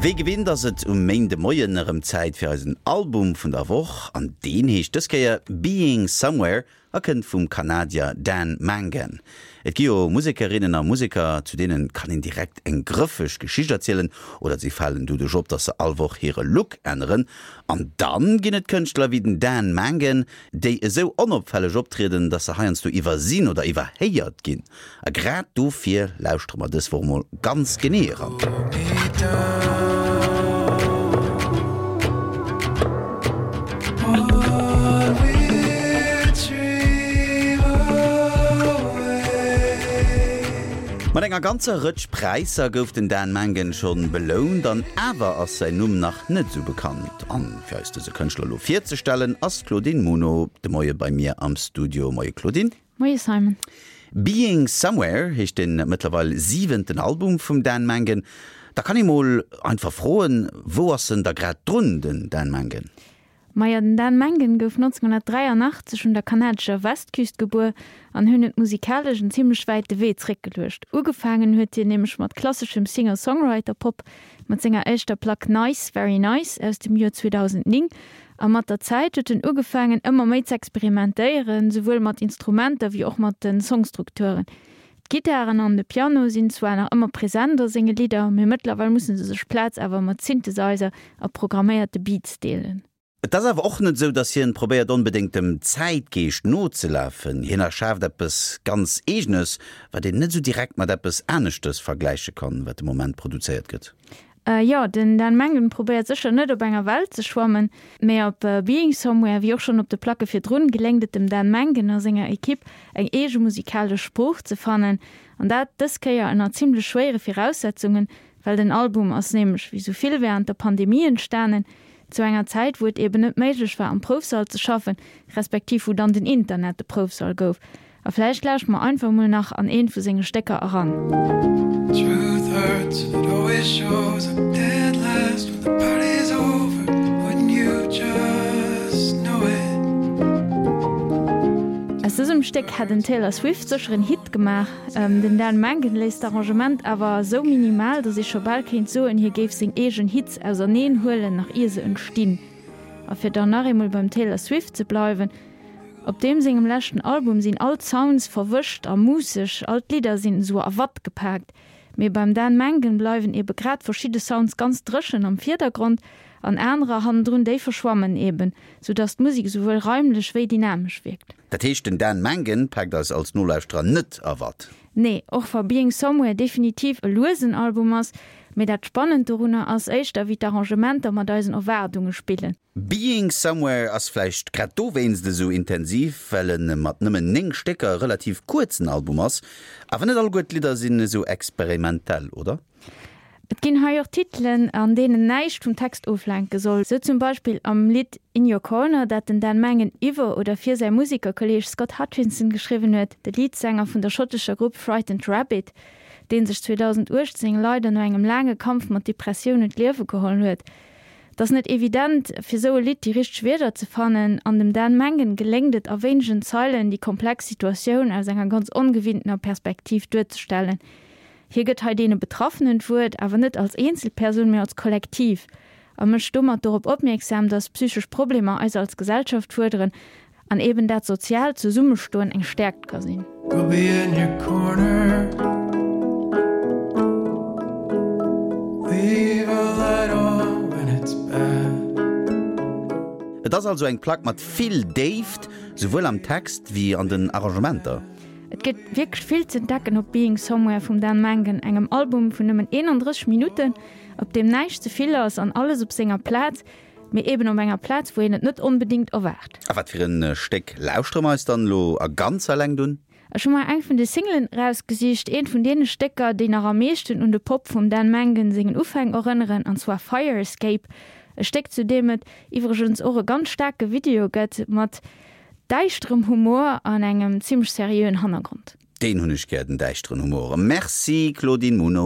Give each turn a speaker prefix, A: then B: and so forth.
A: Wéi gewinnt ass et um Méindemoien erëm Zäit fir eisen Album vun der Woch an deen heescht dës Kéier Being Somewhere a kënnt vum Kanadier Dan Mangan. Et gi jo Musekerinnen a Museker, zu deene kann een direkt eng grëffeg Geschicht erzielen oder si falen doduerch op, dass se all Woch hire Look änneren. An dann ginn et Kënschtler wéi den Dan Mangan, déi esou onopfälleg optrieden, dass se heiansdo iwwersinn oder iwwerhéiert ginn. A grad dofir lauschtere mer dës Woch mol ganz genee eran. Mat enger ganzer Rëtsch Präisser gouf den Dan Mangan schonn belount, an awer ass säin Numm nach net esou bekannt. An fir eis dëse Kënschtler elo virzestellen, ass d'Claudine Muno de Moie bei mir am Studio. Moie Claudine.
B: Moie Simon.
A: Being Somewhere heescht den mëttlerweil siwenten Album vum Dan Mangan. Da kann ee mol einfach froen, wou ass en da grad drun, den Dan Mangan?
B: Majo, den Dan Mangan gouf 1983 un der kanadescher Westküst gebuer an hunn huet musikalesch en zimmlech wäite Wee zréckgeluecht. Ugefaangen huet hien nämlech mat klasseschem Singer-Songwriter-Pop mat senger éischter Plack Nice, Very Nice aus dem Joer 2009 A mat der Zäit huet en ugefaangen ëmmer méi z'experimentéieren, souwuel mat Instrumenter wéi och mat de Songstrukturen. D'Gittaren an de Piano sinn zwar nach ëmmer present a senge Lidder, mee mëttlerweil musse se sech d'Plaz awer mat Synthesizer a programméierte Beats deelen.
A: Et ass awer och net esou, datt hien probéiert onbedéngt dem Zäitgeescht nozelafen. Hien erschaaft eppes ganz Eegenes, wat een net esou direkt mat eppes aneschtes vergläiche kann, wat de Moment produzéiert gëtt.
B: Jo, den Dan Mangan probéiert sécher net op enger Well ze schwammen, mee op Being Somewhere, wéi och schonn op de Placke virdrun, geléngt et dem Dan Mangan a senger Ekipp eng eege musikalesch Sprooch ze fannen, an dat dës Kéier ënner zimmlech schwéiere Viraussetzungen, well den Album ass nämlech wéi sou vill wärend der Pandemie entstanen, zu enger Zäit wou et eben net méiglech war am Proufsall ze schaffen, respektiv wou dann den Internet de Proufsall gouf. A vläicht lauscht mer einfach mol nach an eent vu senge Stécker eran. Truth hurts and it always shows up dead last when the party's over wouldn't you just know it. Aus dësem Stéck hätt en Taylor Swift sécher en Hit gemaach. Den Dan Mangan léisst d'Arrangement awer esou minimal, datt ee scho bal kéint soen, hie géif seng eegen Hits auserneen huelen, nach ier se entstinn. A fir dann nach eemol beim Taylor Swift ze bleiwen, Op deem sengem leschten Album sinn all d'Sounds verwëscht a muusseg, all d'Lidder sinn esou a Watt gepaakt. Mee beim Dan Mangan bleiwen ebe grad verschidde Sounds ganz dréchen am Virdergrond an anerer hannendrun, déi verschwammen eben, sou dass d'Musek esouwuel raimlech wéi dynamesch wierkt.
A: Dat heescht, den Dan Mangan paakt eis als Nolauschterer net a Watt?
B: Nee, och wa Being Somewhere definitiv e luesen Album ass, mee dat Spannend dorunner ass éischter wéi d'Arrangementer mat eisen Erwaardunge spillen.
A: Being Somewhere ass vläicht grad dowéinst esou intensiv, well e mat nëmmen 9 Stécker e relativ kuerzen Album ass. Awer net alleguer d'Lidder sinn esou experimentell, oder?
B: Et ginn hei och Titelen, an deenen näischt vum Text oflenke soll. Sou zum Beispill am Lidd In Your Corner, dat den Dan Mangan iwwer oder fir säi Musekerkolleeg Scott Hutchinson geschriwwen huet, de Leadsänger vun der schottescher Grupp Frightened Rabbit, dee sech 2018 leider no engem laange Kampf mat Depressiounen d'Liewe geholl huet. Et ass net evident, fir sou e Lidd déi richteg Wierder ze fannen, an dem Dan Mangan geléngt et a wéinegen Zeilen, déi komplex Situatioun aus enger ganz ongewinntener Perspektiv duerzestellen. Hie gëtt hei deene Betraffenen d'Wuert, awer net als Eenzelpersoun, mee als Kollektiv, a mécht domat dorop opmierksam, datt psychesch Problemer eis als Gesellschaft fuerderen An eben dat soziaalt Zesummestoen eng Stäerkt ka sinn. We'll be in your corner
A: Leave a light on when it's bad. Et ass also eng Plack mat vill Déift, souwuel am Text wéi an den Arrangementer.
B: Et gëtt wierklech vill z'entdecken op Being Somewhere vum Dan Mangan, engem Album vun nëmmen 31 Minutten, op deem näischt ze vill ass an alles op senger Plaz. Mee eben op enger Plaz, wou een et net onbedingt erwaart.
A: A wat fir en Stéck lauschtere mer eis dann elo a ganzer Längt un?
B: Ech hu mer eng vun de Singlen erausgesicht, eent vun deene Stécker, déi nach am meeschten un de Pop vum Dan Mangan sengen Ufäng erënneren, an zwar Fire Escape, e Stéck zu deem et iwwregens och e ganz staarke Video gëtt, mat däischterem Humor an engem zimmlech seriöen Hannergrond.
A: Deen hunn ech gär, den däischteren Humor. Merci Claudine Muno.